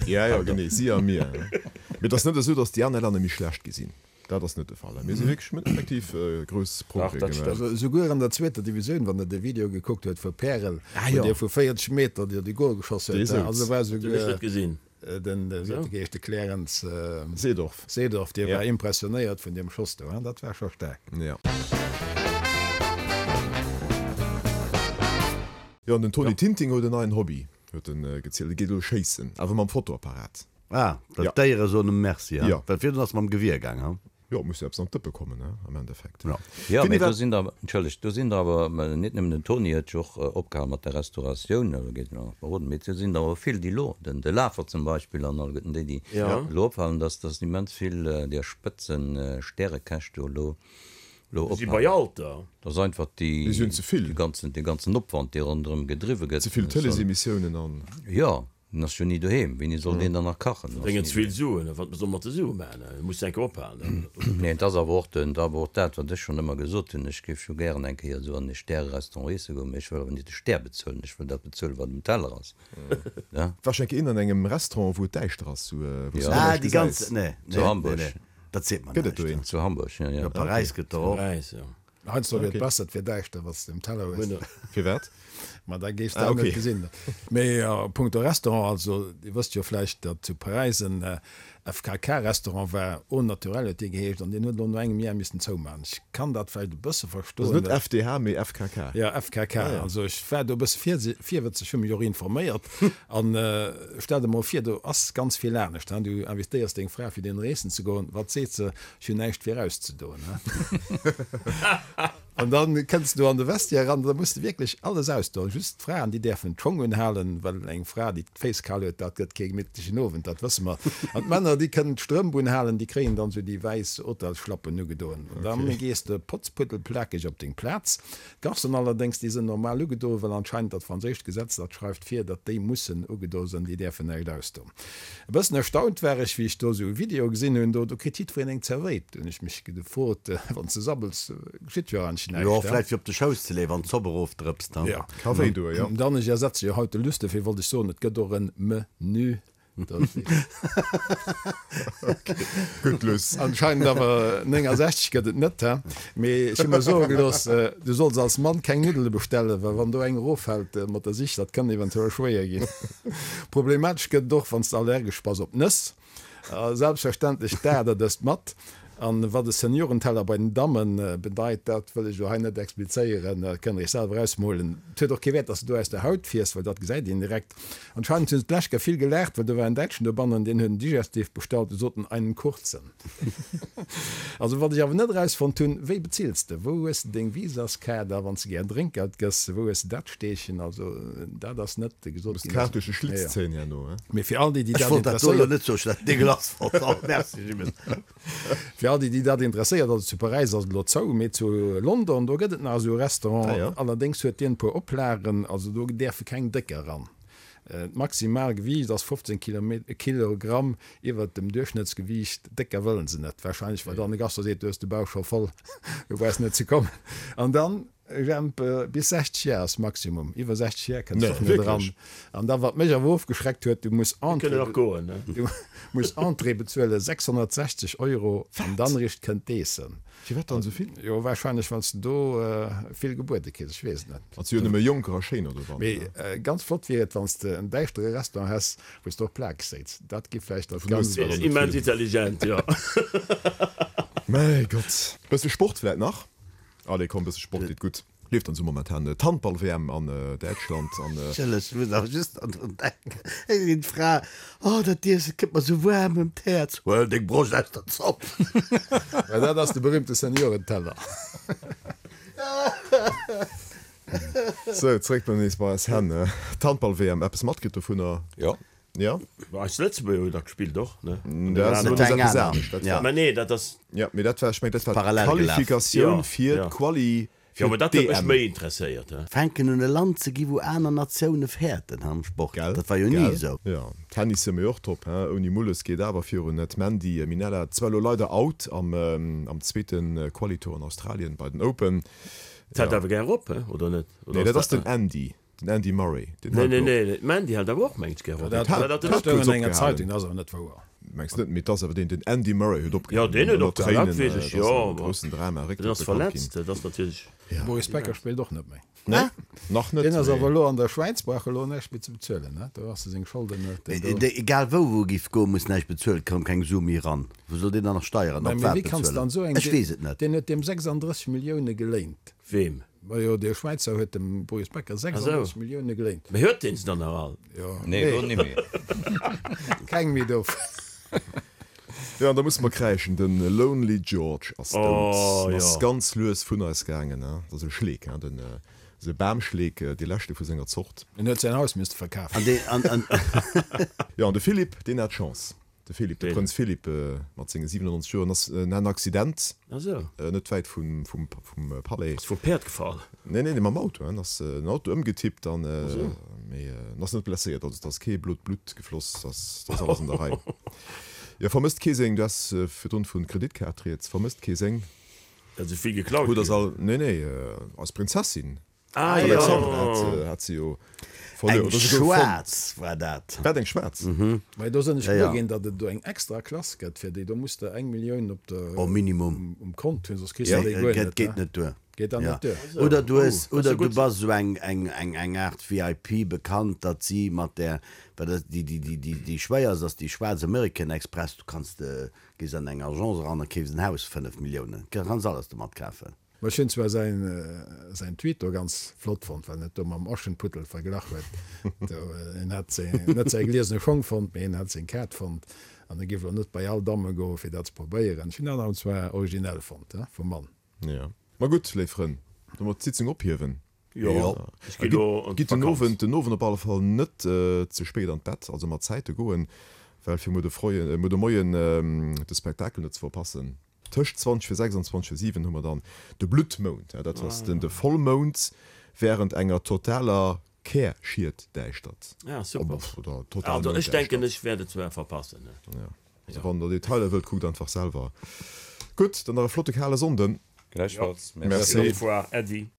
Ja, jo, genee, si a mir. Mee et ass net esou, datt déi aner Länner méi schlecht gi sinn. Dat ass net de Fall. Mir si wierklech, mir hunn effektiv grouss Progrès gemaach. Also esouguer an der zweeter Divisioun, wann der de Video gekuckt huet vu Pärel, Ah wou jo. dee vu 40 Meter dir de Gol geschoss Dee huet, souz. also war Hunn ech net esouguer gesinn. den, wéi huet de geheescht, de Clarence Seedorf. Seedorf, dee Ja. war impressionéiert vun deem Schoss do, dat war scho staark. Ja. Jo, an den Tony Tinting huet en neien Hobby, huet en gezielt. E geet elo schéissen, awer mam Fotoapparat. Ah, well Ja. d'Déiere soen em Merci, ha? Ja. Well virdrun ass mam Gewier gaang, ha? Jo, et muss jo eppes an d'Dëppe kommen, ne, am Endeffekt. Jo. Jo, Finny, mee do wat. sinn der, entschëllegt, do sinn der awer, net nëmmen den Tony huet jo och opgehal mat der Restauratioun, elo geet en och nach beroden, mee do sinn der awer vill, déi elo, den de Lafer zum Beispill an alleguerten déi, déi elo ophalen, dass dass immens vill där Spëtzen-Stärekäch do elo elo Si bei ophalen. Alter. Dat ass einfach déi, Mir si hunn ze vill. dee ganzen, dee ganzen Opwand, dee ronderëm gedriwwe gëtt. Ze vill Tëleesemissiounen an. Jo. En ass jo ni doheem, wéini soll deen dann nach kachen? En ass Bréngen ni ze vill doheem. Suen, wat soll mat de Sue maachen? E muss enke ophalen. Nee, et ass awer och den, awer och dat, wat ech schonn ëmmer gesot hunn, ech géif scho gären eng Kéier esou an e Stäre-Restaurant iesse goen, mee ech wëll awer net de Stär bezuelen, ech wëll dat bezuelen, wat um Teller ass. Ne? War schonn eng Kéier een an engem Restaurant, wou et däischter ass, wou s du Ja. guer Ah, näischt déi ganz, gesäis? nee, Zu nee, nee, Hamburg. nee, dat seet mer Gëtt et do näischt. een? Zu Hamburg, jo, jo. Jo, Paräis gëtt der och. Paräis, jo. Heiansdo wier et Okay. besser, et wier däischter, wann s de um Teller hues. Firwat? Ma da géifs de Ah, auch net okay. gesinn. Mee a punkto Restaurant, also Dir wësst jo vläicht, datt zu Paräis en FKK-Restaurant war, Au Naturel huet dee geheescht, an deen huet elo no engem Jar missen zoumachen. Ech kann dat vläicht e bësse Also verstoen. net FDH, mee FKK. Ja, FKK. Ah, ja. Also ech war do e bësse virsi-, virwëtzeg, hu mech och informéiert. An stell der mol vir, do ass ganz vill anescht, hein. Du invitéiers deng Fra fir deen eessen ze goen, wat seet se? Ech hunn näischt fir auszedoen, hein. An dann kënns du an de Vestiaire eran, da muss de wierklech alles ausdoen. Just d'Fraen, déi däerfen d'Schong unhalen, well eng Fra, déi d'Féiss kal huet, dat gëtt kee gemittlechen Owend, dat wësse mer. An d'Männer, déi kënnen d'Strëmp unhalen, déi kréien dann esou déi wäiss Hotelsschlappen ugedoen. An dann gees de potzpuddelplakeg op deng Plaz. D'Garçonen allerdéngs, déi sënn normal ugedoen, well anscheinend dat franséischt Gesetz dat schreift vir, datt déi mussen ugedo sënn, déi däerfen näischt ausdoen. E bëssen erstaunt war ech, wéi ech do esou e Video gesinn hunn, do do kritt jiddwereen eng Zerwéit. Do hunn ech mech gefrot, wann s de sabbels, geschitt jo eigentlech Jo, näischt, he? vläicht fir op de Schouss ze leeën, wann d'Zopp erofdrëpst, he? Jo. Ka wéi doen, jo. Dann, ech ersetze jo haut de Luss, dofir wollt ech soen, et gëtt och en Menü. Gutt, Luss. Anscheinend awer 69 gëtt et net, he? Mee ech hu mer soe gelooss, du solls als Mann keng Nuddele bestellen, well wann do eng eroffält mat der Sich, dat kann eventuell schwéier ginn. Problematesch gëtt et och, wann s de allergesch bass op Nëss. A selbstverständlech dat der dëst mat. An wat e Seniorenteller bei den Dammen bedeit, dat wëll ech elo hei net explizéieren, dat kënnt der iech selwer ausmolen. Et huet och kee Wäert, dass de do aus der Haut fiers, well dat gesäit een direkt. Anscheinend hunn se d'lescht Kéier vill gelaacht, well do war en Däitschen dobannen, deen huet en Digestif bestallt, du sot en einen kurzen. Also wat ech awer net erausfonnt hunn, wéi bezills de, wou hues de deng Visaskaart a wann s de gär Drénkgeld gëss, wou hues de dat steechen? Also dat ass net gesot Muss ginn. d'Kaart duerch de Schlitz zéien herno, he? Mee fir all déi, déi Ech dat wollt dat do elo interesséiert. net soen, ech dat degueulass fonnt. Oh, merci Jimmes. Fir all déi, déi dat interesséiert, also zu Paräis ass et elo zou, mee zu London, do gëtt et nach esou e Restaurant. Ah jo. Allerdéngs huet deen e puer Oplagen, also do däerfe keng Décker eran. D'maximal Gewiicht ass 15 Kilogramm iwwert dem Duerchschnëttsgewiicht. Décker wëllen se net, warscheinlech well dann de Gastro seet, du hues de Bauch scho voll, du brauchs net ze kommen. An dann, Jemp, bis 60 Jar ass Maximum, iwwer 60 Jar kënns de och net eran. An da wat mech awer ofgeschreckt huet, du muss Entrée, du muss Entrée bezuelen, 660 Euro, an dann eréischt kënnt d'Eessen. Firwat dann esou vill? Jo, wahrscheinlech well s de do vill gebuede kriss, ech weess et net. Et si jo nëmme Jonker a Schéiner dobanner. Mee ganz flott wier et, wann s de en däischtere Restaurant häss, wou s de och Plakeg séiz. Dat gi vläicht dat Ganzt. Immens intelligent, jo. Mäi Gott. Bësse Sport vläit nach? Allez komm, bësse Sport deet gutt. Leeft dann sou momentan d'Handball-WM an Däitschland an. Ech muss awer just an drun denken, eng sinn d'Fra, Oh, dat Iesse kënnt mer sou waarm ëm d'Häerz, huel deng Broscht aus der Zopp. Mä dat ass de berühmte Seniorenteller. Sou, zréck bei nees bei eis Hänn. D'Handball-WM, eppes matkritt dovunner? Jo. Jo. Mä eis Lëtzebuerger hunn da gespillt och, ne? Dat ass eppes anescht. Dat war. Mä nee, dat ass. Jo, mee dat war, ech mengen, dat war d'Qualifikatioun fir d'Quali Jo, mä dat huet mech méi interesséiert, he. Fänken un e Land ze gi wou aner Natioune fäerten am Sport. Gell? Dat war jo ni Gell? esou. Jo, Tennis si mir och top, he. Ouni Mulles geet awer virun. D'Mandy Minella zwar elo leider out am am zweete Quali-Tour an Australien bei den Open. Dat hält awer gär op, he, oder net? Nee, dat ass den Andy. Den Andy Murray, deen Nee, hält nee, op. nee, d'Mandy hält awer och, mengt ech, gär op. Dat Hat dat hat stoung kuerz an enger opgehalen. Zeitung, dat ass awer net wouer. Mengs net, mee et ass awer deen, den Andy Murray huet Jo, opgehalen. deen huet Ënner opgehalen, dat Tréinen, weess ech, et ass jo, e ma groussen Drama, deen Récktrëtt ass bekannt verletzt, ginn. dat ass natierlech. De Boris Becker spillt och net méi. Nee, nach net, Deen ass mee. awer elo an der Schwäiz, brauch elo näischt méi ze bezuelen, ne? Do ass e seng Scholden huet en do. Mee egal wou wou e giff goen, muss näischt bezuelen, koum keng Su méi eran. Wou soll deen dann nach Steieren Mä op mee wat wéi kanns de bezuelen? dann esou eng, Ech weess et net. deen huet deem 36 Millioune geléint. Weem? Majo, dee Schwäizer huet dem Boris Becker 36 Millioune geléint. Mee huet deen se dann nach all? Jo. Nee, elo nimmi. Keng méi dovu. Jo, an da musse mer kräischen, de Lonely George ass dout. Oh, En ass jo. ganz lues vun eis gaangen. Dat ass e Schleek, hein, den, esou e Bamschleek, dee leschte vu senger Zort. En huet säin Haus misste verkafen. An deen, an, an. Jo, an de Philippe, deen hat Chance. De Philippe, de Prënz Philippe mat senge 97 Joer, ass en hat en Accident net wäit vum Palais. Ass vum Päerd gefall? Nee, nee, mam Auto. En ass den Auto ëmgetippt an mee en ass net blesséiert. Also et ass kee blot Blutt gefloss, et ass alles an der Rei. Jo, vermësst kee seng, du has virdrun vu Kreditkaart rieds, vermësst kee seng. Datt esou vill geklaut ginn? Nee, nee, eis Prinzessin. Ah, jo. D'Alexandra hat, hat se jo verluer. Eng Oder souguer fonnt. schwaarz war dat. Wat, eng schwaarz? Mä do sinn ech Ja, gewuer ja. ginn, datt et do eng extra Klass gëtt fir déi. Do muss de eng Millioun op der, Oh, Minimum. um Kont hunn, soss kriss Ja, de déi guer et net. geet Ne? net duer. Geet dann Ja. net duer. Oder du hues, Oh, dat ass oder jo du gutt. bass esou eng, eng, eng, eng Aart VIP bekannt, datt si mat där, well dat, déi, déi, déi, déi, déi schwéierst ass déi schwaarz American Express. Du kanns de, gees an eng Agence eran a keefs en Haus 5 Milliounen. Kanns alles domat kafen. Ma ech hunn zwar säin säin Tweet do ganz flott fonnt, well en et do mam Aschenputtel verglach huet. Do, en hätt seng, net säi gliesene Schong fonnt, mee en hätt seng Kaart fonnt an e giff elo net bei all Damme goen, fir dat ze probéieren. Ech hunn dat awer zwar originell fonnt, he, vum Mann. Jo. Ma gutt, léif Frënn, da mer d'Sitzung ophiewen. Jo, ech ginn elo an Gitt den d'Vakanz. Owend, den Owend op alle Fall net ze spéit an d'Bett, also mat Zäite goen, well fir muer de Froien, muer de Moien de Spektakel net ze verpassen. Tëscht 20 vir 6 an 20 vir 7 hu mer dann de Bluttmound. Dat ass den de Vollmound während enger totaler Kärschietdäischtert. Ah, super. Oder total Also ech denken, Mounddäischtert. ech wäert et zwar verpassen. Ja. Also wann der Detailer wëllt, kuckt einfach selwer. Gutt, dann nach e flotte kale Sonnden. Gläichfalls. Merci. Au revoir, Äddi.